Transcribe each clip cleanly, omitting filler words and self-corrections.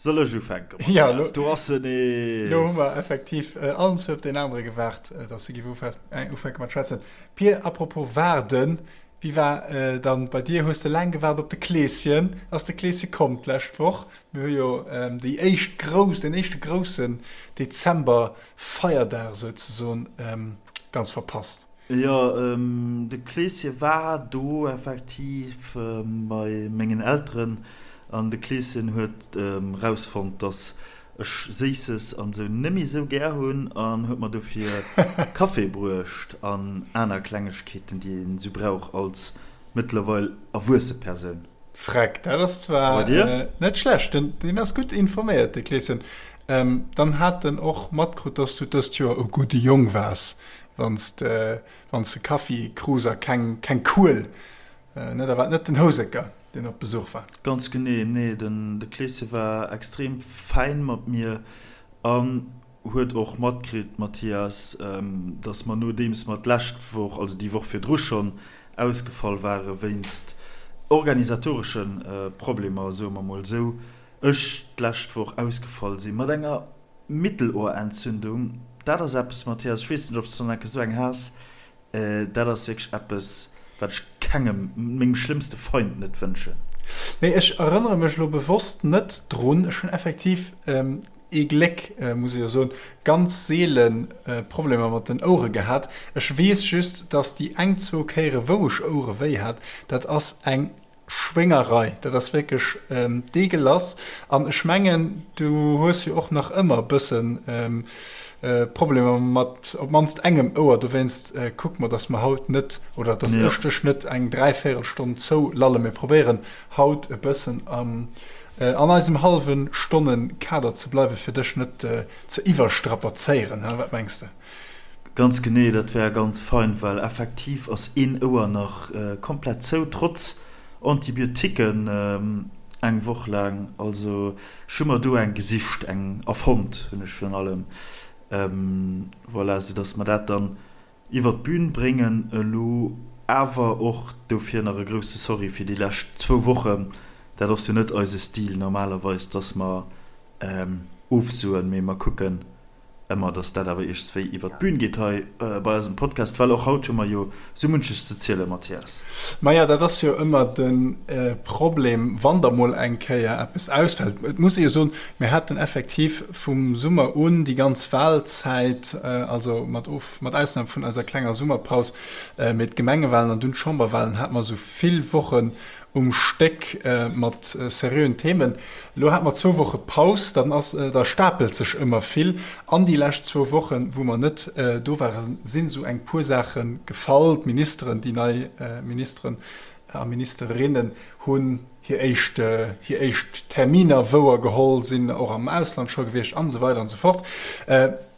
Soll ech ufänken, Mathias? Do ass en nees! Lo hu mer effektiv allen zwou op deen anere gewaart, dass e giff ufänke mat schwätzen. Pir, apropos waarden, wéi war dann bei dir? Hues de laang gewaart op de Kleeschen? Ass de Kleesche komm d'lescht Woch? Mir hu jo déi éischt grouss, deen éischte groussen Dezember-Feierdag souzesoen ganz verpasst. Jo, de Kleeschen war do effektiv bei mengen Elteren an de Kleeschen huet rausfonnt, dass ech Séisses an sou nemmi sou gär hunn an huet mer dofir Café bruecht an aner Klengegkeeten, déi een sou brauch als mëttlerweil erwuesse Persoun. Freck, dat ass zwar net schlecht. Deen ass gutt informéiert, de Kleeschen. Dann hat en och matkrut, dass du dëst Joer e gudde Jong waars. Wann s de wann s de Kaffi krus a keng keng Kuel, ne, da war et net den Houseker, deen op Besuch war. Ganz genee, nee, den de Kleeschen war extrem fäin mat mir an huet och matkritt, Mathias, dass mer nodeems mer d'lescht Woch, also déi Woch virdru schonn ausgefall ware wéinst organisatoresche Problemer, soe mer mol esou, ech d'lescht Woch ausgefall si mat enger Mittelohrentzündung, dat ass eppes, Mathias, ech weess net, ob s de schonn enke sou eng has, dat ass wierklech eppes, wat ech kengem, mengem schlëmmste Feind net wënschen. Nee, ech erënnere mech elo bewosst net drun. Ech hunn effektiv ee Gléck, muss ech jo soen, ganz seele Problemer mat den Ouere gehat. Ech weess just, dass déi eng, zwou Kéiere wou ech Ouerewéi hat, dat ass eng Schwéngerei, dat ass wierklech deegelass. An ech mengen, du hues jo och nach ëmmer e bëssen Problemer mat op d'mannst engem Ouer. Dowéinst kucke mer, dass mer haut net, oder dass ech dech net eng Dräivéierelstonn zoulallen. Mir probéieren haut e bëssen an eisem hallwe Stonne-Kader ze bleiwen, fir dech net ze iwwerstrapazéieren. Wat mengs de? Ganz genee, dat wär ganz fein, well effektiv ass een Ouer nach komplett zou, trotz Antibiotiquen eng Woch laang. Also ech hu mer do eng gesicht, eng erfonnt hunn ech virun allem, voilà, soudass mer dat dann iwwer d'Bün bréngen. Elo awer och dofir nach e grousse Sorry fir déi lescht zwou Wochen. Dat ass jo net eise Stil normalerweis, dass mer ofsoen, mee mer kucken Ëmmer, dass dat awer iergendswéi iwwer d'Bün geet hei bei eisem Podcast, well och haut hu mer jo sou munches ze zielen, Mathias. Maja, dat ass jo ëmmer de Problem, wann da mol eng Kéier eppes ausfält. Et muss ee jo soen, mir haten effektiv vum Summer un déi ganz Wahlzäit, also mat Of, mat Ausnam vun eiser klenger Summerpaus, mee d'Gemengewahlen an dunn d'Chamberwahlen hate mer esou vill Wochen um Stéck mat seriöen Themen. Elo hate mer zwou Woche Paus, dann ass, da stapelt sech ëmmer vill. An déi lescht zwou Wochen, wou mer net do waren, sinn esou eng puer Saache gefall. D'Ministeren, déi nei Ministeren a Ministerinnen hunn hir éischt, hir éischt Terminer wouer geholl, sinn och am Ausland scho gewiescht an esou weider an esou fort.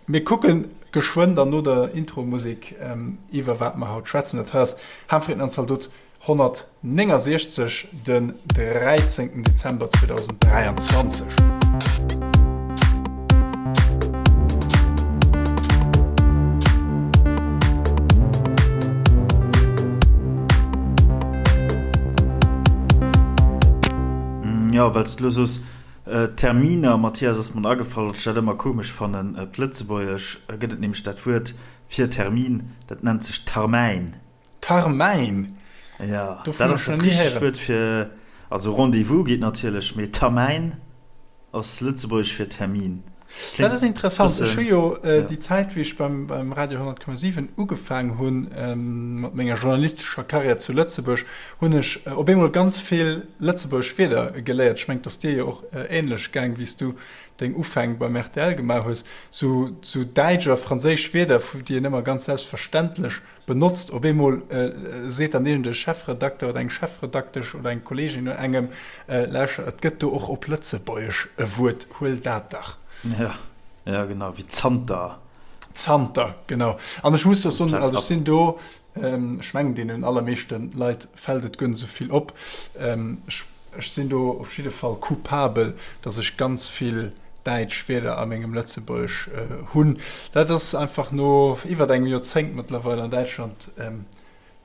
Mir kucke geschwënn dann no der Intro-Musek iwwer wat mer haut schwätzen. Dat hei ass Ham, Fritten an Zaldot. 169, den 13 Dezember 2023. Jo, well s de elo soos, Terminer, Mathias, ass mer agefall, datt ech dat ëmmer komesch fannen. Op Lëtzebuergesch gëtt et nämlech dat Wuert fir Termin, dat nennt sech Tarmäin. Tarmäin? Ja, dat ass dat richtegt Wuert fir, also Rendez-vous geet natierlech, mee Tarmäin ass lëtzebuergesch fir Termin. Dat ass interessant. Ech hu jo déi Zäit, wéi ech beim Radio 100,7 ugefaang hunn mat menger journalistescher Karriär zu Lëtzebuerg, hunn ech op eemol ganz vill lëtzebuergesch Wierder geléiert. Ech mengen, et ass dir jo och änlech gaang, wéi s du deng Ufäng beim rtl gemaach hues. Sou däitsch a franséisch Wierder, déi een ëmmer ganz selbstverständlech Benotzt. Op eemol seet dann iergend e Chefredakter oder eng Chefredaktesch oder eng Kolleegin no engem, Lauschter, et gëtt do och op Lëtzebuergesch e Wuert, huel dat dach. Ja, ja genau, wéi zanter. Zanter, genau. An ech muss jo soen, also ech sinn do, ech mengen deenen allermeeschte Leit fält et guer net esou vill op, ech Ech sinn do op jidde Fall coupabel, dass ech ganz vill däitsch Wierder a mengem Lëtzebuergesch hunn. Dat ass einfach no iwwert engem Joerzéngt mëttlerweil an Däitschland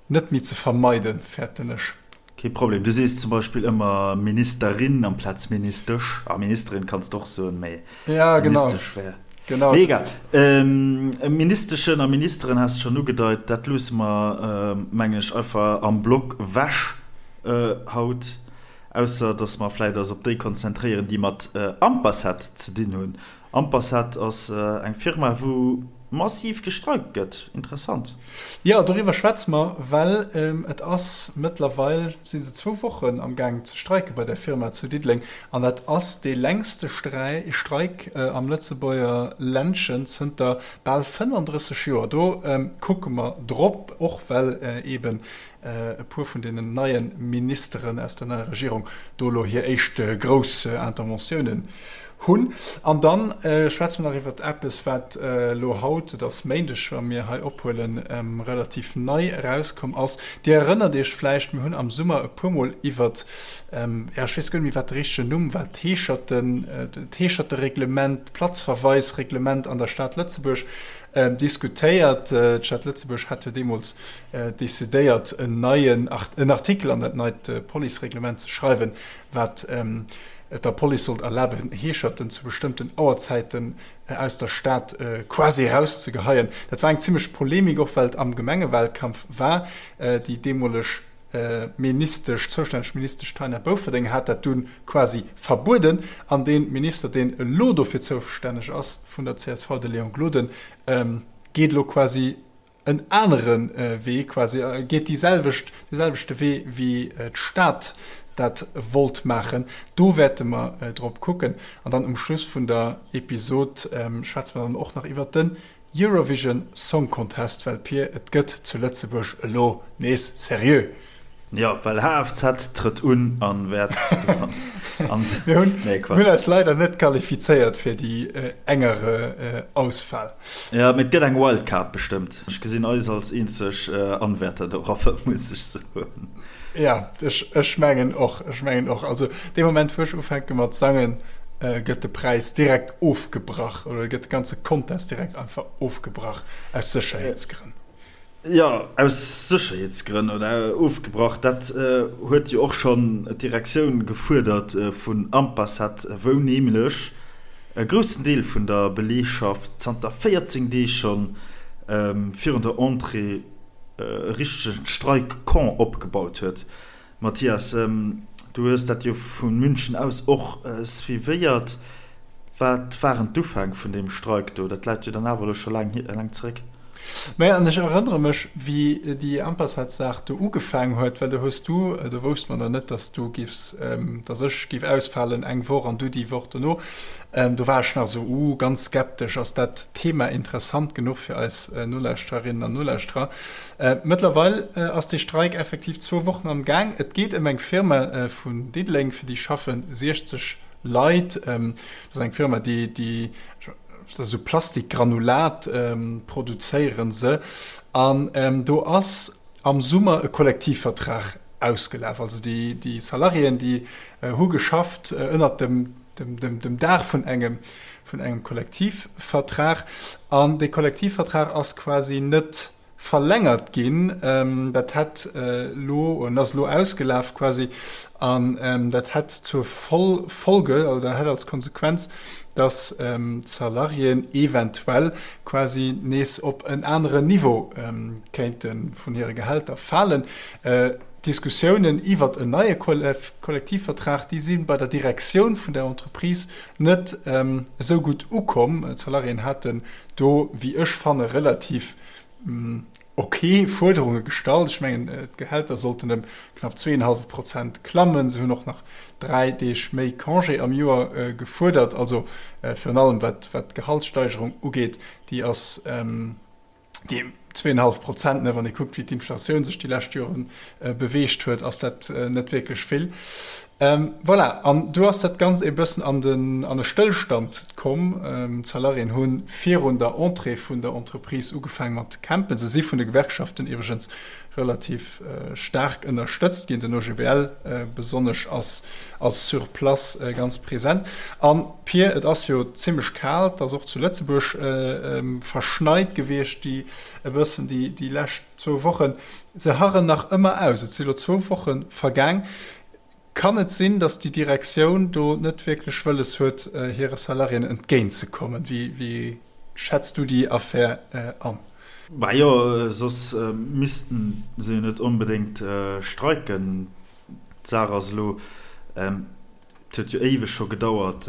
net méi ze vermeiden, fäerten ech. Kee Problem. Du sees zum Beispill ëmmer Ministerin amplaz Ministesch. Ah, Ministerin kanns de och soen, mee ja, genau. Ministesch wär. Genau. Mee egal. Ähm, Ministeschen a Ministeren has de schonn ugedeit. Dat loosse mer, mengen ech, einfach am Block wech haut. Ausser dass mer vläit eis op déi konzentréieren, déi mat Ampacet ze dinn hunn. Ampacet ass eng Firma, wou massiv gestreikt gëtt. Interessant. Jo, doriwwer schwätze mer, well et ass mëttlerweil, si se zwou Wochen am Gaang ze streike bei där Firma zu Diddeleng. An dat ass dee längste Streik am Lëtzebuerger Ländchen zënter bal 35 Joer. Do kucke mer drop, och well eeben e puer vun deenen neie Ministeren aus der neier Regierung do elo hir éischt grouss Interventiounen hunn. An da schwätze mer nach iwwert eppes, wat elo haut, et ass Méindeg, wa mir hei ophuelen, relativ nei erauskomm ass. Dir erënnert Iech vläicht, mir hunn am Summer e puermol iwwert, jo, ech weess guer net méi, wat de richtegen Numm war, d'Heescherten, d'Heeschertereglement, d'Platzverweisreglement an der Stad Lëtzebuerg diskutéiert. D'Stad Lëtzebuerg hat jo deemools decidéiert, en neien en Artikel an dat neit Policereglement ze schreiwen, wat et der Police sollt erlaben, Heescherten zu bestëmmten Auerzäiten aus der Stad quasi erauszegeheien. Dat war eng zimmlech Polemik, och well et am Gemengewalkampf war. Déi deemoleg Ministesch, zoustänneg Ministesch Taina Bouferdeng hat dat dunn quasi verbueden. An dee Minister, deen elo dofir zoustänneg ass, vun der csv, de Léon Gloden, geet elo quasi en anere Wee, quasi geet déi selwecht, dee selwechte Wee wéi d'Stad dat wollt maachen. Do wäerte mer drop kucken. An dann um Schluss vun der Episod schwätze mer dann och nach iwwert den Eurovision Song Contest, well Pir, et gëtt zu Lëtzebuerg elo nees seriö. Jo, well HFZ trëtt un an wäert gewannen. Mir hunn Nee, Quatsch. Mir hunn eis leider net qualifizéiert fir déi engere Auswahl. Jo, mee et gëtt eng Wildcard bestëmmt. Ech gesinn eis als eenzeg Anwärter dorop, muss ech soen. Ja, ech, ech mengen och, ech mengen och. Also dee Moment, wou ech ufänke mat sangen, gëtt de Präis direkt ofgebrach oder gëtt de ganze Contest direkt einfach ofgebrach aus Sécherheetsgrënn. Jo, aus Sécherheetsgrënn oder ofgebrach, dat huet jo och schonn d'Direktioun gefuerdert vun Ampacet, wou nämlech e groussen Deel vun der Beleegschaft zanter 14 Deeg schonn virun der Entrée e richtegen Streikcamp opgebaut huet. Mathias, du hues dat jo vu München aus och suivéiert. Wat waren d'Ufäng vun deem Streik do? Dat läit jo dann awer elo scho laang laang zeréck. Maja, an ech erënnere mech, wéi déi Ampacet-Saach do ugefaang huet, well do hues du, do wousste mer nach net, dass du giffs, dass ech giff ausfalen eng Woch an du déi Woch dono, do war ech nach esou, uh, ganz skeptesch, ass dat Thema interessant genuch fir eis Nolauschtererinnen an Nolauschterer? Mëttlerweil ass dee Streik effektiv zwou Wochen am Gaang. Et geet ëm eng Firma vun Diddeleng, fir déi schaffe 60 Leit. Dat ass eng Firma, déi, déi, dat ass esou Plastikgranulat produzéiere se. An do ass am Summer e Kollektivvertrag ausgelaf. Also déi, déi Salariéen, déi hu geschafft ënnert dem, dem, dem, dem Daach vun engem, vun engem Kollektivvertrag. An dee Kollektivvertrag ass quasi net verlängert ginn. Dat hätt elo, oder ass elo ausgelaf quasi, an dat hätt zur Folge oder hätt als Konsequenz, dass d'Salariéen eventuell quasi nees op en aneren Niveau kéinte vun hire Gehälter falen. D'Diskussiounen iwwert en neie Kollektivvertrag, déi si bei der Direktioun vun der Entreprise net esou gutt ukomm. D'Salariéen haten do, wéi ech fanne, relativ ok Fuerderunge gestallt. Ech mengen, d'Gehälter sollten ëm knapp zweeënhallwe Prozent klammen. Se hunn och nach 3 Deeg méi Congé am Joer gefuerdert. Also virun allem wat d'Gehaltssteigerung ugeet, déi ass déi zweeënhallef Prozent, ne, wann ee kuckt, wéi d'Inflatioun sech déi lescht Jore beweegt huet, ass dat net wierklech vill. Voilà, an du ass dat Ganzt e bëssen an den, an e Stëllstand komm. D'Salariéen hu virun der Entrée vun der Entreprise ugefaang mat campen. Se si vun de Gewerkschaften iwwregens. relativ staark ënnerstëtzt ginn. Den OGBL besonnesch ass sur place ganz present. An Pir, et ass jo zimmlech kal, et ass och zu Lëtzebuerg verschneit gewiescht déi e bëssen déi lescht zwou Wochen. Se harren nach ëmmer aus. Et si lo zwou Woche vergaang. Kann et sinn, datt déi Direktioun do net wierklech wëlles huet, hire Salariéen entgéintzekommen? Wéi schätz du déi Affär an? Majo, soss missten se jo net onbedéngt streiken. D'Saach ass elo, et huet jo éiweg scho gedauert,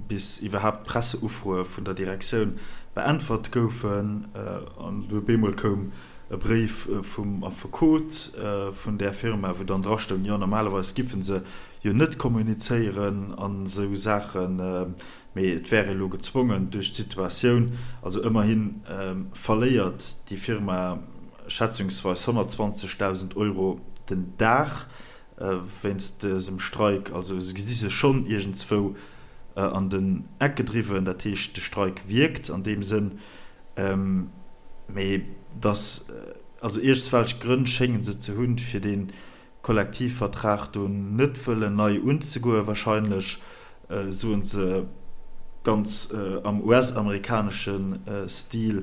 bis iwwerhaapt d'Presseufroe vun der Direktioun beäntwert goufen. An du op eemol koum e Bréif vum Affekot vun där Firma, wou dann drastoung, jo normalerweis giffe se jo net kommunizéieren an esou Saachen, mee et wär ee lo gezwongen duerch d'Situatioun. Also ëmmerhi verléiert déi Firma schätzungsweis 120.000 Euro den Dag wéinst dësem Streik. Also se gesi sech schonn iergendzwou an den Eck gedriwwen. Dat heescht, de Streik wierkt an deem Sënn. Mee dass, also iergendswelch Grënn schénge se ze hunn, fir dee Kollektivvertrag do net wëllen nei unzegoen. Wahrscheinlech soen se ganz am US-amerikanesche Stil,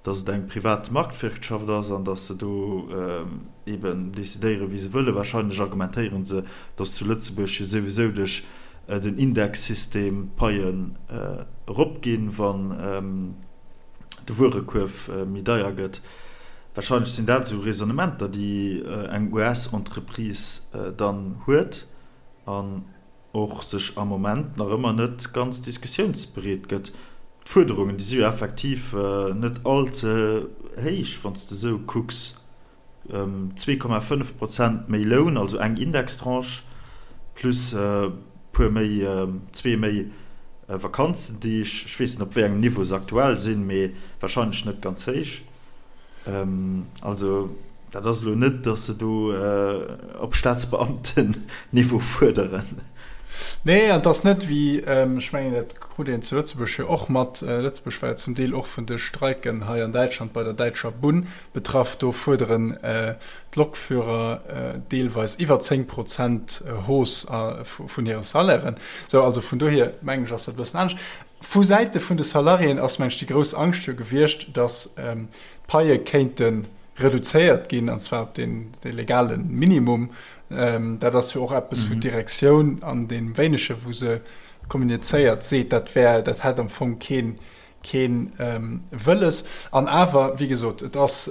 dass et eng privat Marktwirtschaft ass an dass se do eben decidéieren, wéi se wëllen. Wahrscheinlech argumentéiere se, dass zu Lëtzebuerg jo souwisou duerch den Indexsystem d'Paien eropginn, wann de Wuerekuerf méi deier gëtt. Wahrscheinlech sinn dat esou Raisonnementer, déi eng US-Entreprise dann huet an och sech am Moment nach ëmmer net ganz diskussiounsbereet gëtt. D'Fuerderungen, déi si jo effektiv net all ze héich, wann s de esou kucks. 2,5 Prozent méi Loun, also eng Indextranche, plus e puer méi, zwee méi Vakanzendeeg. Ech weess net, op wéi engem Niveau se aktuell sinn, mee warscheinlech net ganz héich. Also dat ass elo net, datt se do op Staatsbeamten-Niveau fuerderen. Nee, an et ass net wéi, ech mengen, dat krut een zu Lëtzebuerg jo och mat, Lëtzebuerg war jo zum Deel och vun de Streiken hei an Däitschland bei der däitscher Bunn betraff, do fuerderen d'Lokführer deelweis iwwer 10 Prozent Hausse vun hire Salairen. Sou, also vun dohier mengen ech, ass dat e bëssen anescht. Vu Säite vun de Salariéen ass, mengen ech, déi grouss Angscht jo gewiescht, datt d'Paie kéinte reduzéiert ginn, an zwar op dee legale Minimum. Dat ass jo och eppes, wou d'Direktioun an deem Wéinege wou se kommunizéiert, seet, dat wär, dat hätt am Fong kee kee Wëlles. An awer, wéi gesot, et ass,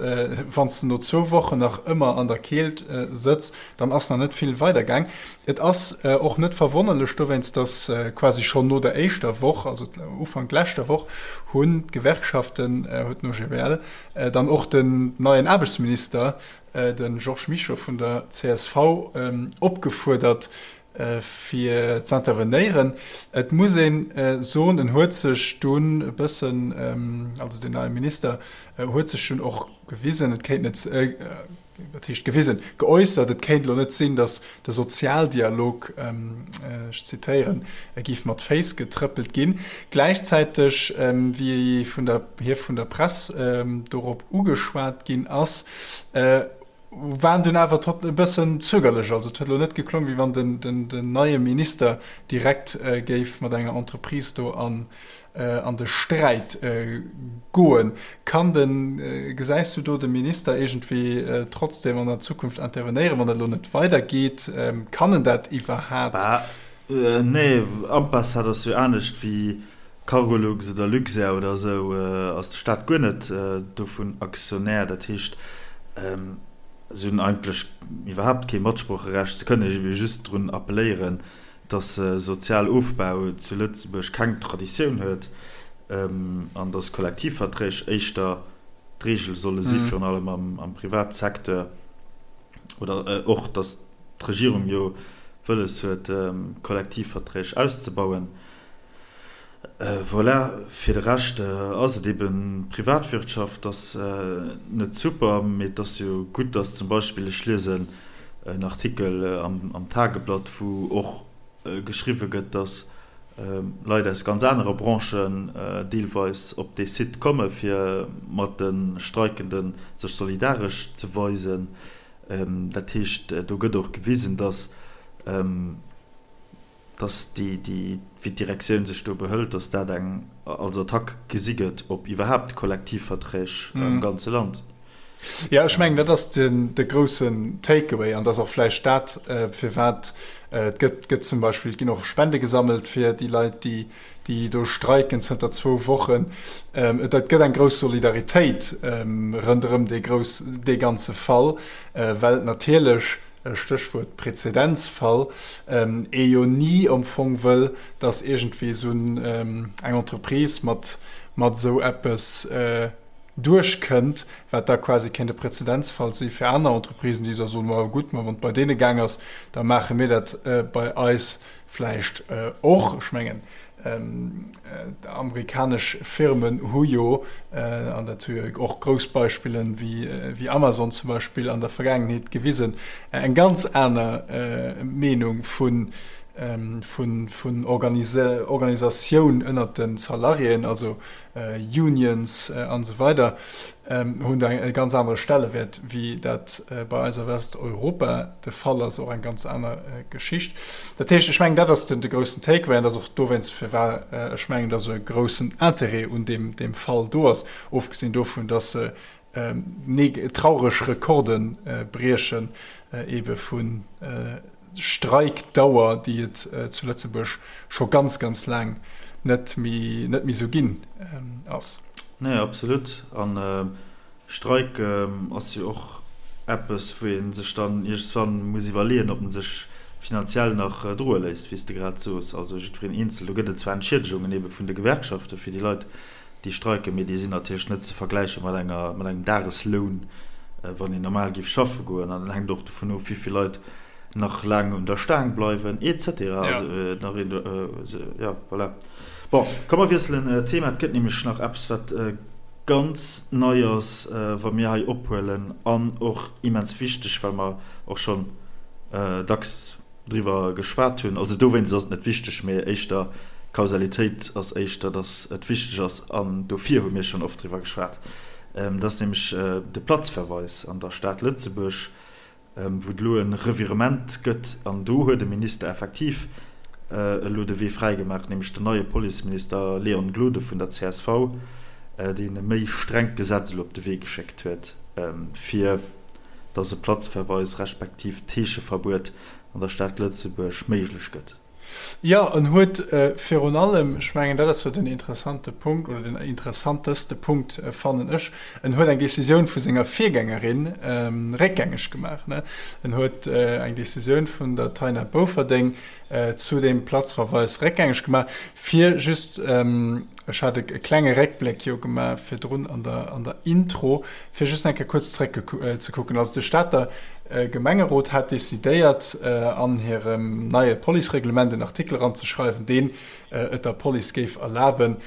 wann s de no zwou Wochen nach ëmmer an der Keelt sëtz, dann ass nach net vill weidergaang. Et ass och net verwonnerlech dowéinst, datt quasi schonn no der éischter Woch, also Ufank leschter Woch, hunn d'Gewerkschaften, huet den OGBL, dann och den neien Aarbechtsminister, de Georges Mischo vun der csv, opgefuerdert, fir z'intervenéieren. Et muss ee soen, en huet sech dunn e bëssen, also den neie Minister huet sech dunn och gewisen, et kéint net, wat heescht gewisen, geäussert, et kéint elo net sinn, datt de Sozialdialog, ech zitéieren, géif mat Féiss getrëppelt ginn. Gläichzäiteg, wéi vun der, hie vun der Press dorop ugeschwat ginn ass, waren dunn awer tot e bëssen zögerlech. Also et huet elo net geklongen, wéi wann den, den, den neie Minister direkt géif mat enger Entreprise do an, an de Sträit goen. Kann den, gesäis du do de Minister iergendwéi trotzdem an der Zukunft intervenéieren, wann dat elo net weidergeet? Kann en dat iwwerhaat? Bah, nee, Ampass, dat ass jo anescht wéi Cargolux oder Luxair oder esou, ass de Staat guer net dovun Aktionär. Dat heescht, se hunn eigentlech iwwerhaapt kee Matsproocherecht. Se kënnen ebe just drun appelléieren, datt Sozialofbau zu Lëtzebuerg keng Traditioun huet an datt Kollektivverträg éischter d'Reegel solle si, virun allem am Privatsecteur, oder och datt d'Regierung jo wëlles huet, Kollektivverträg auszebauen. Voilà, fir de Rescht ass et eben Privatwirtschaft, ass net super, mee et ass jo gutt, dass zum Beispill, ech liesen en Artikel am Tageblatt, wou och geschriwwe gëtt, dass. Leit aus ganz anere Branchen deelweis op dee Site komme fir mat de Streikende sech solidaresch ze weisen. Dat heescht, do gëtt och gewisen, datt datt déi, déi, wéi d'Direktioun sech do behëlt, datt dat eng als Attack gesi gëtt op iwwerhaapt d'Kollektivverträg am ganze Land. Jo, ech mengen, dat ass den, de groussen Takeaway an dat ass och vläicht dat, firwat et gëtt, gëtt zum Beispill, et ginn och Spende gesammelt fir déi Leit, déi, déi do streiken zënter zwou Wochen. Et gëtt eng grouss Solidaritéit ronderëm dee grouss, dee ganze Fall, well natierlech, Stéchwuert Präzedenzfall, ee jo ni am Fong wëll, datt iergendwéi esou eng Entreprise mat mat esou eppes duerchkënnt, wat da quasi kéint e Präzedenzfall si fir aner Entreprisen, déi da soen, ma gutt, ma wann et bei deene gaang ass, da maache mir dat bei eis vläicht och. Ech mengen, Amerikanesch Firmen hu jo, an dat hu jo och grouss Beispillen wéi Amazon zum Beispill an der Vergaangenheet gewisen, eng ganz aner Meenung vun Organisatioun ënnert de Salariéen, also Unions an esou weider, hunn do e ganz anere Stellewäert, wéi dat bei eis a Westeuropa de Fall ass, och eng ganz aner Geschicht. Dat heescht, ech mengen, dat ass de groussen Takeaway an dat ass och dowéinst, firwat ech mengen, datt esou e groussen Interêt un deem Fall do ass, ofgesinn dovun, datt se traureg Rekorde briechen, eebe vu Streikdauer, déi et zu Lëtzebuerg scho ganz, ganz laang net méi net méi esou ginn ass. Nee, absolut. An Streik ass jo och eppes, wou ee sech dann iergendwann muss iwwerleeën, ob en sech finanziell nach droe léisst, wéi s de grad soos. Also jiddwereen eenzel. Do gëtt et zwar Entschiedegungen ebe vun de Gewerkschafte fir déi Leit, déi streiken, mee déi sinn natierlech net ze vergläiche mat enger, mat engem Dagesloun, wann een normal géif schaffe goen. An dat hänkt och dovun of, wéi vill Leit nach laang un der Staang bleiwen, et cetera. Also nach een, jo, voilà. Bon, komm mer wiesselen d'Thema. Et gëtt nämlech nach eppes, wat ganz nei ass, wa mir hei ophuelen, an och immens wichteg, well mer och schonn dacks driwwer geschwat hunn. Also dowéinst ass et net wichteg, mee éischter d'Kausalitéit ass éischter, datt et wichteg ass, an dofir hu mir schonn oft driwwer geschwat. Dat ass nämlech de Platzverweis an der Stad Lëtzebuerg, wou et elo e Revirement gëtt. An do huet e Minister effektiv elo de Wee fräigemaach, nämlech den neie Policeminister Léon Gloden vun der csv, deen e méi strengt Gesetz elo op de Wee geschéckt huet, fir dass e Platzverweis respektiv Heescheverbuet an der Stad Lëtzebuerg méiglech gëtt. Jo, en huet virun allem, ech mengen, dat ass jo den interessante Punkt oder den interessanteste Punkt, fannen ech, en huet eng Décisioun vu senger Virgängerin réckgängeg gemaach. En huet eng Décisioun vun der Taina Bofferding zu deem Platzverweis réckgängeg gemaach, fir just, ech hat e klenge Réckbléck jo gemaach virdrun an der, an der Intro, fir just eng Kéier kuerz zréckzekucken. Also de Stater Gemengerot hat decidéiert, an hirem neie Policereglement en Artikel eranzeschreiwen, deen et der Police géif erlaben,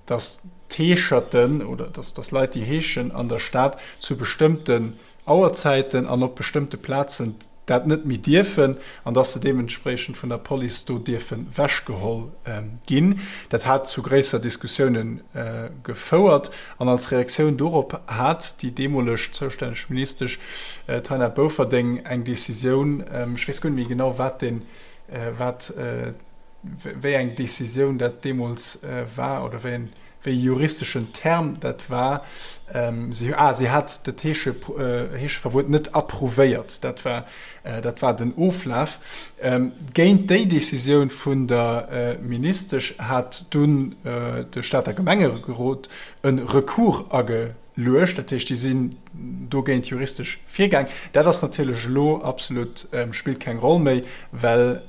dass d'Heescherten oder dass Leit, déi heeschen an der Stad, zu bestëmmten Auerzäiten an op bestëmmte Plazen dat net méi dierfen an dass se deementspriechend vun der Police do dierfe wechgeholl ginn. Dat hat zu gréisser Diskussioune gefouert an als Reaktioun dorop hat déi deemoleg zoustänneg Ministesch Taina Bofferding eng Decisioun, ech weess guer net méi genau wat deen, wat, wéi eng Decisioun dat deemools war oder wéi en, wéi e juristeschen Term dat war. Si, ah, si hat dat Heesche, Heescheverbuet net approuvéiert. Dat war, dat war den Oflaf. Géint déi Decisioun vun der Ministesch hat dunn de Stater Gemengerot e Recours ageluecht. Dat heescht, déi sinn dogéint juristesch virgaang. Dat ass natierlech elo absolut, spillt keng Roll méi, well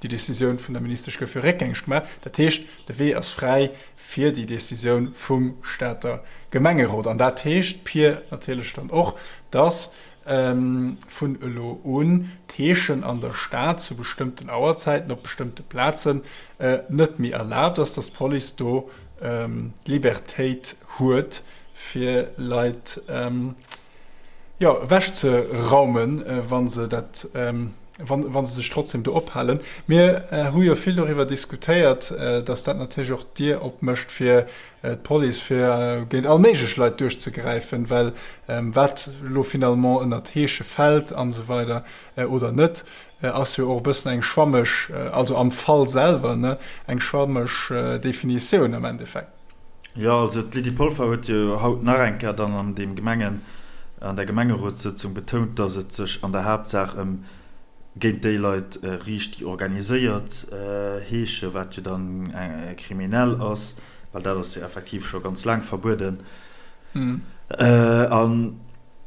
déi Decisioun vun der Ministesch gouf jo réckgängeg gemaach. Dat heescht, De Wee ass fräi fir déi Decisioun vum Stater Gemengerot. An dat heescht, Pir, natierlech dann och, dass vun elo un d'Heeschen an der Stad zu bestëmmten Auerzäiten op bestëmmte Plazen net méi erlaabt ass, dass d'Police do d'Libertéit huet, fir Leit, jo, ewechzeraumen, wa se dat. Wann, wa se sech trotzdem do ophalen. Mir hu jo vill doriwwer diskutéiert, dass dat natierlech och d'Dier opmécht fir d'Police, fir géint all méiglech Leit duerchzegräifen, well wat elo finalement ënnert Heesche fält an esou weider oder net, ass jo och e bëssen eng schwammeg, also am Fall selwer, ne, eng schwammeg Definitioun am Endeffekt. Jo, also d'Lydie Polfer huet jo haut nach eng Kéier dann an deem Gemengen, an der Gemengerotssëtzung betount, datt et sech an der Haaptsaach ëm géint déi Leit riicht, déi organiséiert heeschen, wat jo dann kriminell ass, well dat ass jo effektiv scho ganz laang verbueden. An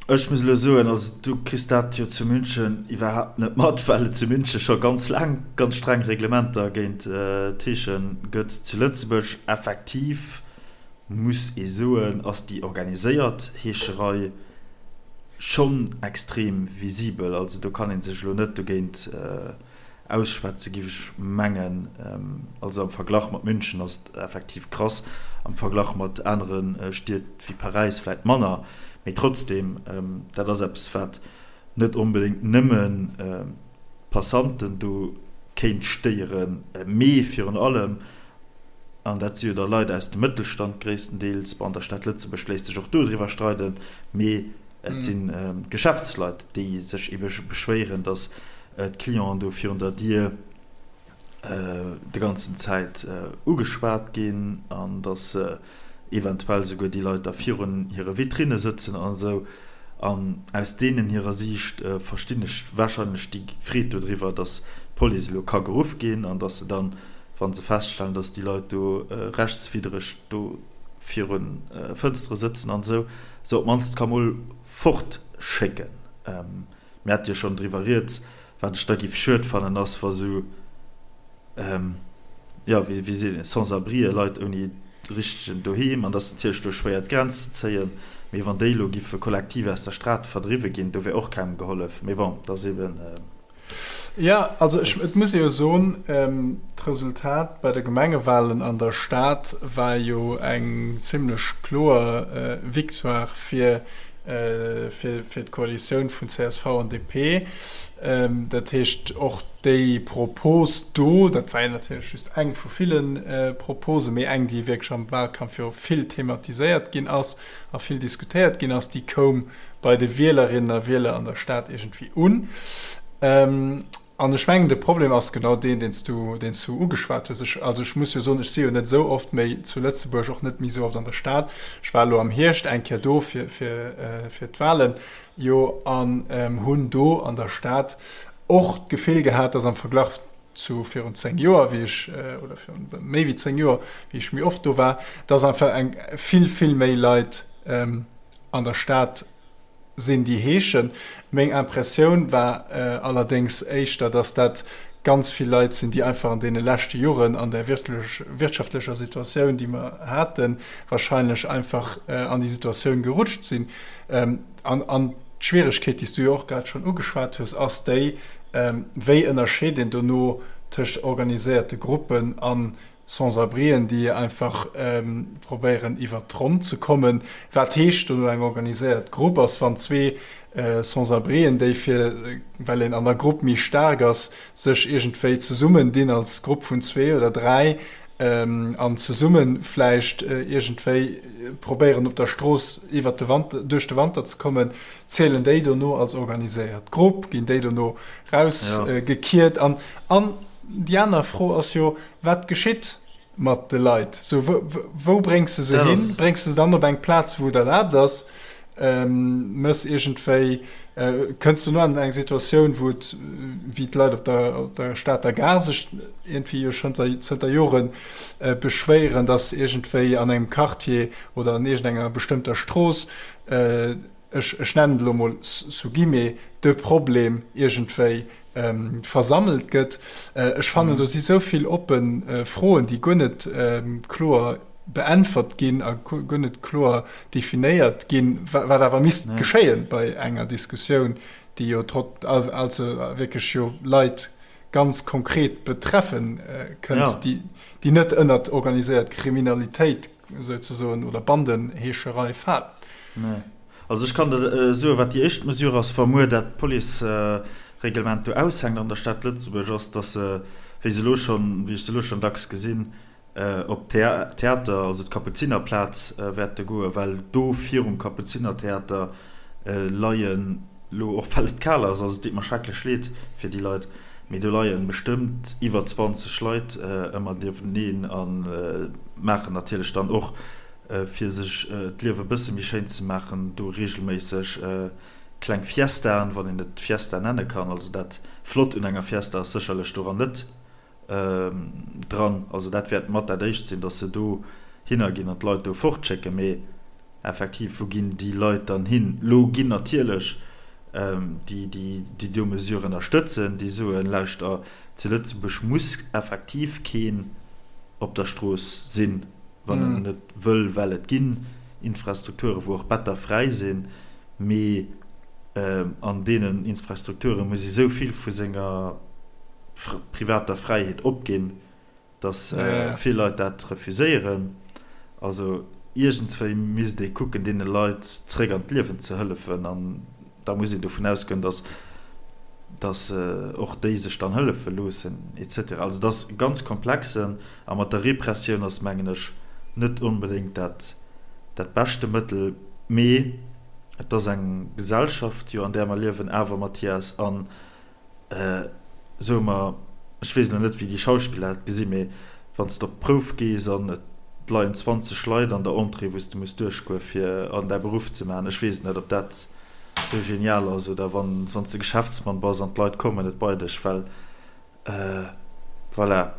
Ech muss elo soen, also du kriss dat jo zu München iwwerhaapt net mat, well et zu München scho ganz laang ganz streng Reglementer géint d'Heesche gëtt. Zu Lëtzebuerg effektiv, muss ee soen, ass déi organiséiert Heescherei schonn extrem visibel. Also do kann ee sech elo net dogéint Ausschwätze giff ech mengen. Also am Verglach mat München ass et effektiv krass, am Verglach mat anere Stied wéi Paräis vläit manner, mee trotzdem, dat ass eppes wat net onbedéngt nëmmen d'Passanten do kéint stéieren, mee virun allem, an dat si jo da Leit aus dem Mëttelstand gréisstendeels, bon an der Stad Lëtzebuerg léisst sech och do driwwer streiden, mee Et sinn d'Geschäftsleit, déi sech ebe beschwéieren, datt d'Clienten do virun der Dier de ganzen Zäit ugeschwat ginn an datt eventuell souguer déi Leit da virun hire Vitrinne sëtzen an esou. An aus deenen hirer Siicht verstinn ech warscheinlech déi Freed dodriwwer, datt d'Police elo ka geruff ginn an datt se dann, wa se feststellen, datt déi Leit do rechtswiddereg do virun Fënstere sëtzen an esou, se op d'mannst ka mol fort schécken. Mir hate jo schonn driwwer rieds. Wat ech da giff schued fannen ass, wa sou, jo, wéi wéi seet een, Sans-abrien, Leit ouni richtegen Doheem, an et ass natierlech do schwéier d'Grenz ze zéien, mee wann déi elo giffe kollektiv aus der Strat verdriwwe ginn, do wär och kengem gehollef. Mee bon, et ass eben. Jo, also ech, et muss ee jo soen, d'Resultat bei de Gemengewahlen an der Stad war jo eng zimlech kloer Victoire fir, fir, fir d'Koalitioun vun csv an DP. Dat heescht, och déi Propos do, dat war jo natierlech just eng vu ville Proposen, mee eng, déi wierklech am Wahlkampf jo vill thematiséiert ginn ass a vill diskutéiert ginn ass, déi koum bei de Wielerinnen a Wieler an der Stad iergendwéi un. An ech mengen, de Problem ass genau deen, deen s du, deen s du ugeschwat hues. Ech, also ech muss jo soen, ech si jo net esou oft méi zu Lëtzebuerg, och net méi esou oft an der Stad. Ech war elo am Hierscht eng Kéier do fir, fir, fir d'Wahlen, jo, an hunn do an der Stad och d'Gefill gehat, dass am Verglach zu virun 10 Joer, wéi ech, oder virun méi wéi 10 Joer, wéi ech méi oft do war, dass einfach eng vill, vill méi Leit, an der Stad sinn, déi heeschen. Meng Impressioun war allerdéngs éischter, dass dat ganz vill Leit sinn, déi einfach an deene leschte Joren an där wirtschaftlecher Situatioun, déi mer haten, wahrscheinlech einfach an déi Situatioun gerutscht sinn. An d'Schwieregkeet, déi s du jo och grad schonn ugeschwat hues, ass déi, Wéi ënnerscheet een dono tëscht organiséierte Gruppen an Sans-abrien, déi einfach probéieren iwwert d'Ronn ze kommen. Wat heescht dono eng organiséiert Grupp? Ass wann zwee Sans-abrien, déi fir, well een an der Grupp méi staark ass, sech iergendwéi zesummen dinn als Grupp vun zwee oder dräi an zesumme vläicht iergendwéi probéieren op der Strooss iwwert de Wanter, duerch de Wanter ze kommen, zielen déi dono als organiséiert Grupp? Ginn déi dono rausgekiert? An an déi aner Fro ass jo, Wat geschitt mat de Leit? Sou, wou bréngs de se hin? Bréngs de se dann op eng Plaz, wou et erlaabt ass? Mëss iergendwéi, kënns du no an eng Situatioun, wou et, wéi d'Leit op der, op der Stater Gare sech iergendwéi jo schonn zënter Jore beschwéieren, dass iergendwéi an engem Quartier oder an iergendenger bestëmmter Strooss, ech, ech nennen et elo mol sous guillemets, de Problem iergendwéi versammelt gëtt. Ech fannen, do si sou vill oppe Froen, déi guer net kloer beäntwert ginn a guer net kloer definéiert ginn, wat awer misst geschéien bei enger Diskussioun, déi jo trotz, also wierklech jo Leit ganz konkret betreffe kënnt, déi net ënnert organiséiert Kriminalitéit souzesoen oder Bandenheescherei falen. Nee. Also ech kann der soen, wat déi éischt Mesure ass, wa muer dat d'Police. Reglement do aushänkt an der Stad Lëtzebuerg, ass, dass se, wéi se elo schonn, wéi ech se elo schonn dacks gesinn, op d'Theater, also d'Kapuzinerplaz wäerte goen, well do virum Kapuzinertheater leien elo, och well et kal ass, also et deet mer schrecklech leed fir déi Leit, mee do leien bestëmmt iwwer 20 Leit ëmmer nieweneen a maachen natierlech dann och, fir sech d'Liewe e bësse méi schéin ze maachen, do reegelméisseg kleng Fiestaen, wann een et Fiesta nenne kann. Also dat Flott un enger Fiesta ass sécherlech doran net dran. Also dat wäert mat dat éischt sinn, datt se do hinner ginn an d'Leit do fortschécken. Mee effektiv, wou ginn déi Leit dann hin? Lo ginn natierlech déi, déi déi do Mesure ënnerstëtzen, déi soen, lauschter, zu Lëtzebuerg muss effektiv keen op der Strooss sinn, wann en net wëll, well et ginn Infrastrukture wou och Better fräi sinn. Mee an deenen Infrastrukture muss ee sou vill vu senger privater Fräiheet opginn, datt vill Leit dat refuséieren. Also iergendswéi misst ee kucken, deene Leit zréck an d'Liewen ze hëllefen. An da muss een dovun ausgoen, datt datt och déi sech dann hëllefe loossen et cetera. Also et ass ganz komplexe a mat der Repressioun ass, mengen ech, net onbedéngt dat dat beschte Mëttel. Mee et ass eng Gesellschaft jo an där mer liewen awer, Mathias, an soe mer, ech weess elo net wéi déi Schauspiller dat gesinn, mee wann s de op d'Prouf gees an et leien 20 Leit an der Entrée wou s de muss duerchgoe fir an däi Beruff ze maachen, ech weess net ob dat esou genial ass oder wann s de Geschäftsmann bass an d'Leit kommen net bei dech well Voilà,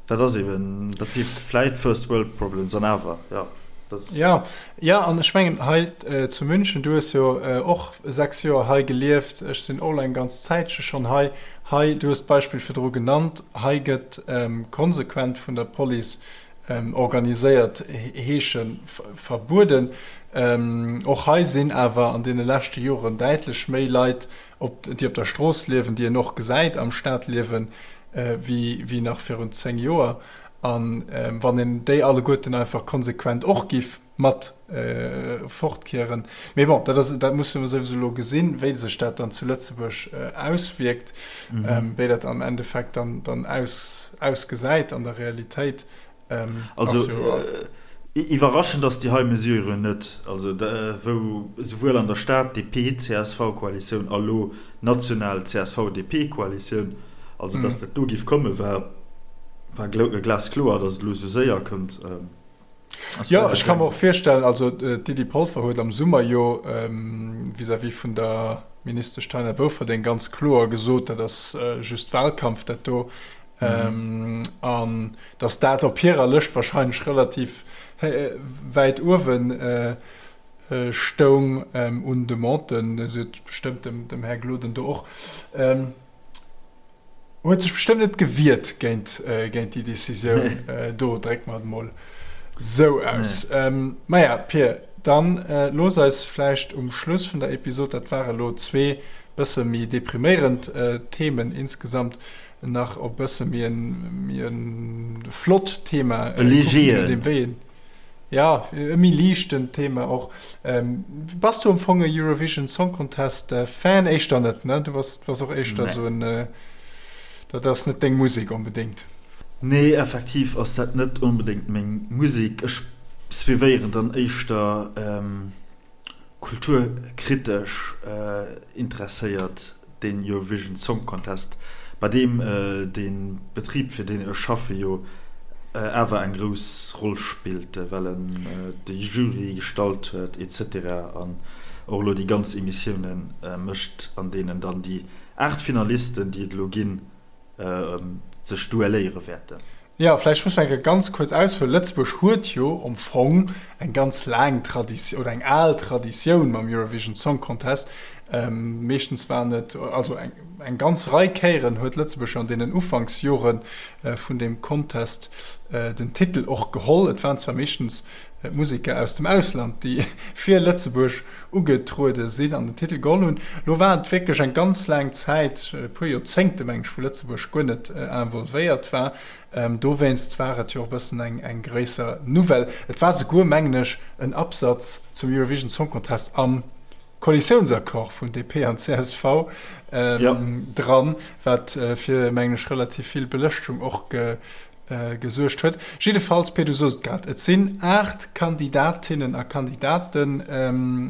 dat ass eben, dat si vläit First World Problems an awer, jo, dat. Jo, jo, an ech mengen hei zu München, du hues jo och 6 Joer hei gelieft, ech sinn och elo eng ganz Zäitche schonn hei. Hei, du hues d'Beispill virdru genannt, hei gëtt konsequent vun der Police organiséiert Heesche verbueden. Och hei sinn awer an deene leschte Joren däitlech méi Leit op, déi op der Strooss liewen, déi een och gesäit am Stadliewen, wéi, wéi nach virun 10 Joer. A wann een déi alleguerten einfach konsequent och giff mat fortkieren. Mee bon, dat ass, dat musse mer souwisou elo gesinn, wéi sech dat dann zu Lëtzebuerg auswierkt, wéi dat am Endeffekt dann, dann aus, ausgesäit an der Realitéit. Also iwwerraschend ass déi hei Mesure net. Also wou esouwuel an der Stad DP-CSV-Koalitioun a lo national CSV-DP-Koalitioun, also datt dat do giff komme war war glaskloer, datt et elo esou séier kënnt. Jo, ech ka mer och virstellen, also d'Lydie Polfer huet am Summer jo vis-à-vis vun der Ministesch Taina Bouferdeng ganz kloer gesot, dat ass just Wahlkampf dat do. An datt dat op hirer Lëscht wahrscheinlech relativ wäit uewe stoung un Demanden. Si huet bestëmmt dem Här Gloden do och, huet sech bestëmmt net gewiert géint déi Decisioun do, drécke mer et emol esou aus. Maja, Pir, dann looss eis vläicht um Schluss vun der Episod, dat ware lo zwee bësse méi depriméierend Themen insgesamt, nach op bësse méi en, méi en flott Thema e legeren, wéi en, ja, e méi liichten Thema och. Ähm, bass du am Fong e Eurovision Song Contest äh, Fan? Éischter net, ne? Du bass, bass och éischter nee. so en, äh, dat ass net deng Musek onbedéngt. Nee, effektiv ass dat net onbedéngt meng Musek. Ech suivéieren dann éischter ähm, kulturkritesch interesséiert den Eurovision Song Contest, bei deem de Betrib fir deen ech schaffe jo awer eng grouss Roll spillt, well en de Jury gestallt huet etc. An och elo déi ganz Emissioune mécht, an deenen dann déi 8 Finalisten, déi et elo ginn, sech duelléiere wäerten. Jo, vläicht muss mer eng Kéier ganz kuerz aushuelen. Lëtzebuerg huet jo am Fong eng ganz laang Traditioun oder eng al Traditioun mam Eurovision Song Contest. Meeschtens waren et, also eng ganz Rei Kéieren huet Lëtzebuerg jo an deenen Ufanksjore vun deem Contest den Titel och geholl. Et waren zwar meeschtens Museker aus dem Ausland, déi fir Lëtzebuerg ugetruede sinn an den Titel geholl hunn. Lo war et wierklech eng ganz laang Zäit, e puer Joerzéngte meng ech, wou Lëtzebuerg guer net involvéiert war. Dowéinst war et jo och e bëssen eng gréisser Nouvelle. Et war souguer, mengen ech, en Absatz zum Eurovision Song Contest am. Koalitiounsaccord vun DP an csv dran, wat fir, mengen ech, relativ vill Belëschtung och gesuergt huet. Jiddefalls, Pir, du sos et grad, et sinn 8 Kandidatinnen a Kandidaten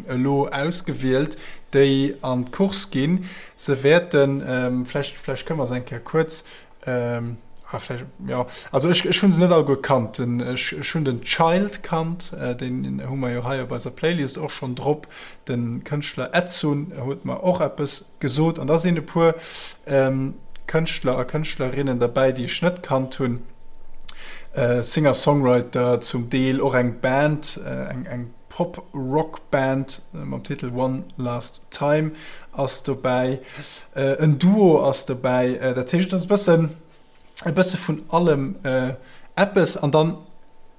elo ausgewielt, déi an d'Course ginn. Se wäerten, vläicht, vläicht kënne mer se eng Kéier kuerz, ah, vläicht, jo, also ech, ech hu se net alleguer kannt. Den, ech, ech hunn den Child kannt, deen hu mer jo hei op eiser Playlist och schonn drop. De Kënschtler Edsun huet mer och eppes gesot. An da sinn e puer Kënschtler a Kënschtlerinnen derbäi, déi ech net kannt hunn. Singer-Songwriter, zum Deel och eng Band, eng Pop-Rock-Band mam Titel One Last Time ass dobäi. En Duo ass dobäi. Dat heescht, et ass e bëssen e bësse vun allem eppes. An dann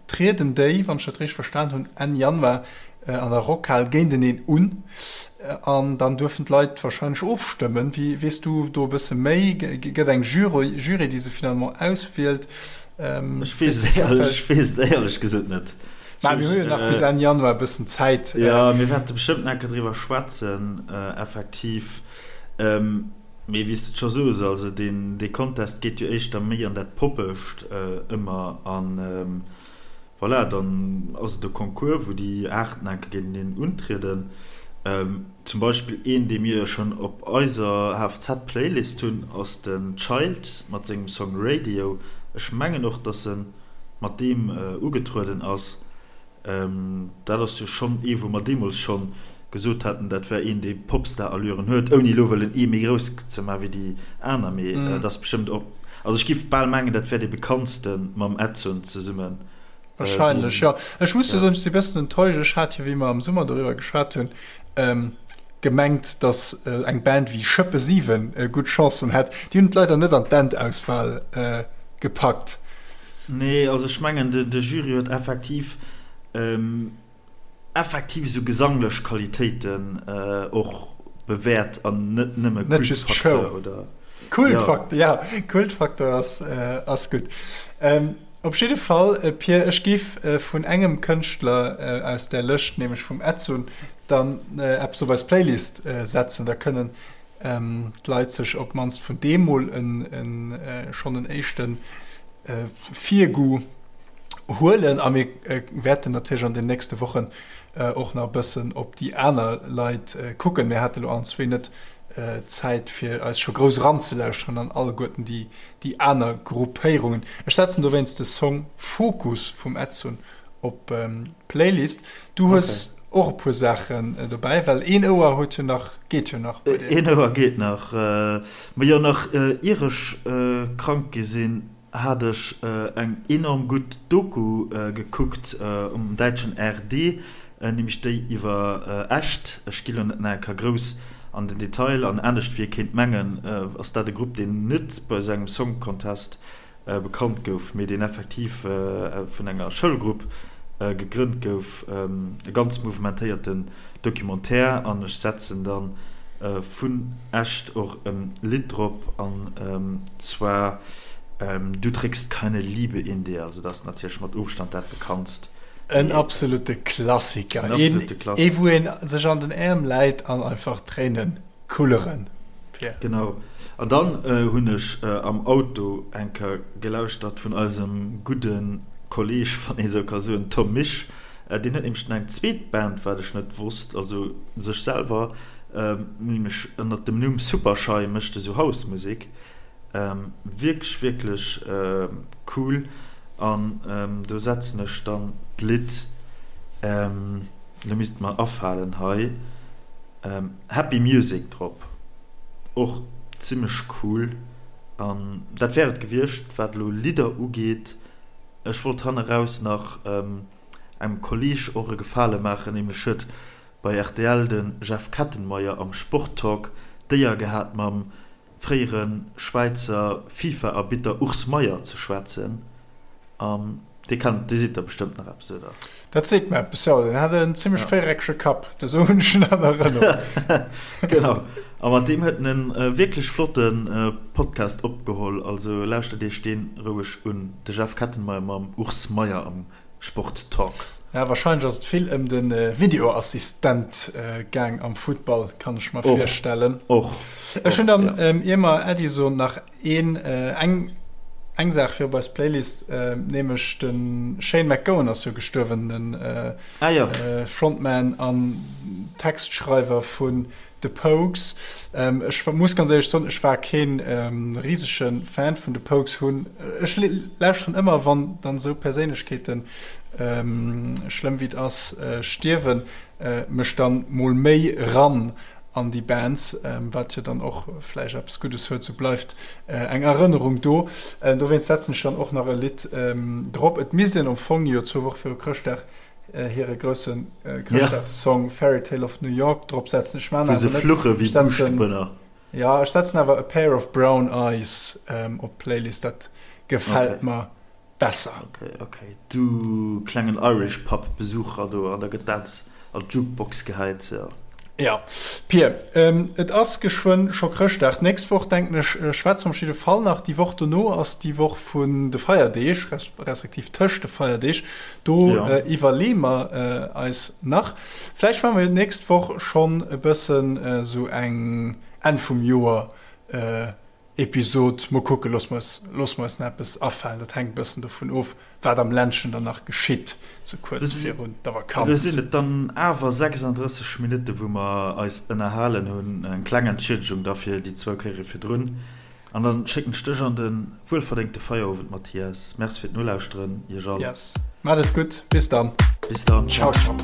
trieden déi, wann ech dat richteg verstan hunn, Enn Januar an der Rockhal géinteneen un. An dann duerfen d'Leit warscheinlech ofstëmmen. Wéi, weess du do e bësse méi? Gëtt eng Jury, Jury, déi se finalement auswielt? Ech weess et éierlech, ech weess et éierlech gesot net. Mä mir hu jo nach bis Enn Januar e bëssen Zäit. Jo, mir wäerte bestëmmt nach eng Kéier driwwer schwätzen, effektiv. Mee wéi s de et scho soos, also deen dee Contest geet jo éischter méi an dat Poppescht ëmmer an voilà, dann ass et e Concours wou déi 8 enke géinteneen untrieden. Zum Beispill een dee mir jo schonn op eiser HFZ Playlist hunn ass den Child mat sengem Song Radio. Ech mengen och dass en mat deem ugetrueden ass. Dat ass jo schonn ee wou mer deemools schonn gesot haten, dat wär een dee Popstar-Allüren huet, ouni elo wëllen ee méi grouss ze maachen wéi déi aner, mee dat ass bestëmmt och, also ech giff bal mengen, dat wär dee bekanntste mam Edsun zesummen. Wahrscheinlech, jo. Ech muss jo soen, ech si e bëssen enttäuscht. Ech hat jo, wéi mer am Summer doriwwer geschwat hunn, gemengt, datt eng Band wéi Schëppe 7 gutt Chancen hätt. Déi hunn et leider net an d'Endauswahl gepackt. Nee, also ech mengen de Jury huet effektiv effektiv esou gesanglech Qualitéiten och bewäert an net nëmme Kultfaktor oder. Kultfaktor, ja, Kultfaktor ass ass gutt. Op jidde Fall, Pir, ech giff vun engem Kënschtler aus där Lëscht, nämlech vum Edsun, dann eppes op eis Playlist setzen, da kënnen d'Leit sech op d'mannst vun deem mol schonn en éischte Virgoût huelen. A mir wäerten natierlech an den nächste Wochen och nach e bëssen op déi aner Leit kucken. Mir hate lo allen zwee net d'Zäit, fir eis scho grouss eranzelauschteren an alleguerten déi aner Gruppéierungen. Ech setzen dowéinst de Song Focus vum Edsun op d'Playlist. Du hues och e puer Saachen dobäi, well een Ouer huet jo nach, geet jo nach bei dir. Een Ouer geet nach. Ma jo, nach ier ech krank gi sinn, hat ech eng enorm gutt Doku gekuckt um däitschen ARD, nämlech déi iwwer Echt. Ech gi lo net nach eng Kéier grouss an den Detail an. Anescht wéi ee kéint mengen, ass dat e Grupp, deen net bei esou engem Song Contest bekannt gouf, mee deen effektiv vun enger Schoulgrupp gegrënnt gouf. E ganz mouvementéierten Documentaire an ech setzen dann vun Echt och e Lidd drop an zwar Du trägst keine Liebe in dir, also dat ass natierlech mat Ofstand dat bekanntst. En absolute Klassiker, ee wou een sech an den Äerm läit an einfach Tréinen kulleren. Pierre. Genau. An dann hunn ech am Auto eng Kéier gelauschtert vun eisem gudde Kolleg, wann ee sou ka soen, Tom Misch. Deen huet nämlech eng zweet Band, wat ech net wosst, also sech selwer, nämlech ënnert dem Numm Supershy mécht e sou House-Musek. Wierklech, wierklech cool. An do setzen ech dann d'Lidd, elo misst et mer afalen hei, Happy Music drop, och zimmlech cool. An dat wär et gewiescht wat elo Lidder ugeet. Ech wollt hanneraus nach engem Kolleg och e Gefale maachen, nämlech huet bei rtl de Jeff Kettenmeyer am Sporttalk d'Éier gehat mam fréiere Schwäizer FIFA-Arbitter Urs Meier ze schwätzen. An dee kennt, dee seet der bestëmmt nach eppes, oder? Dat seet mer eppes, jo. Deen hat en zimmlech véiereckege Kapp, esou hunn ech en an Erënnerung. Genau. A mat deem huet en e wierklech flotte Podcast opgeholl. Also lauschtert iech dee roueg un, de Jeff Kettenmeyer mam Urs Meier am Sport Talk. Ja, wahrscheinlech ass et vill ëm de Videoassistent gaang am Futtball, kann ech mer virstellen. Och. Ech hunn dann, ier mer Äddi soen, nach een, eng, eng Saach fir op eis Playlist, nämlech de Shane MacGowan ass jo gestuerwen, den Frontman an Textschreiwer vun The Pogues. Ech muss ganz éierlech soen, ech war kee risege Fan vun The Pogues. Hunn, ech lauschteren ëmmer, wann dann esou Perséinlechkeeten, schlëmm wéi et ass, stierwen, mech dann mol méi ran an déi Bands, wat jo dann och vläicht eppes Guddes huet, sou bleift eng Erënnerung do. Dowéinst setzen ech dann och nach e Lidd drop. Et misst een am Fong jo zwou Woche viru Chrëschtdag hire grousse Chrëschtdagssong Fairy Tale of New York drop setzen. Ech man awer net. Wou se fluche wéi Buuschtebënner. Jo, ech setzen awer A Pair of Brown Eyes op d'Playlist, dat gefält mer besser. Ok, ok, du klengen Irish Pub Besucher do, an da gëtt dat an d'Jukebox gehäit, jo. Jo, Pir, et ass geschwënn scho Chrëschtdag. D'nächst Woch, denken ech, schwätze mer op jidde Fall nach. Déi Woch dono ass déi Woch vun de Feierdeeg, respektiv tëscht de Feierdeeg. Do iwwerleeë mer eis nach. Vläicht maache mer jo d'nächst Woch schonn e bëssen esou eng Enn vum Joer Episod. Mol kucken, loosse mer eis, loosse mer eis nach eppes afalen. Dat hänkt e bëssen dovun of, wat am Ländchen dann nach geschitt, sou kuerz virun der Lo Vakanz. sinn et dann awer 36 Minutte wou mer eis ënnerhalen hunn. Eng kleng Entschiedegung da fir déi zwou Kéiere virdrun. An dann schécken ech dech an de wuelverdéngte Feierowend, Mathias. Merci fir d'Nolauschteren, iech all. Yes, maacht et gutt, bis dann. Bis dann, ciao. Ciao.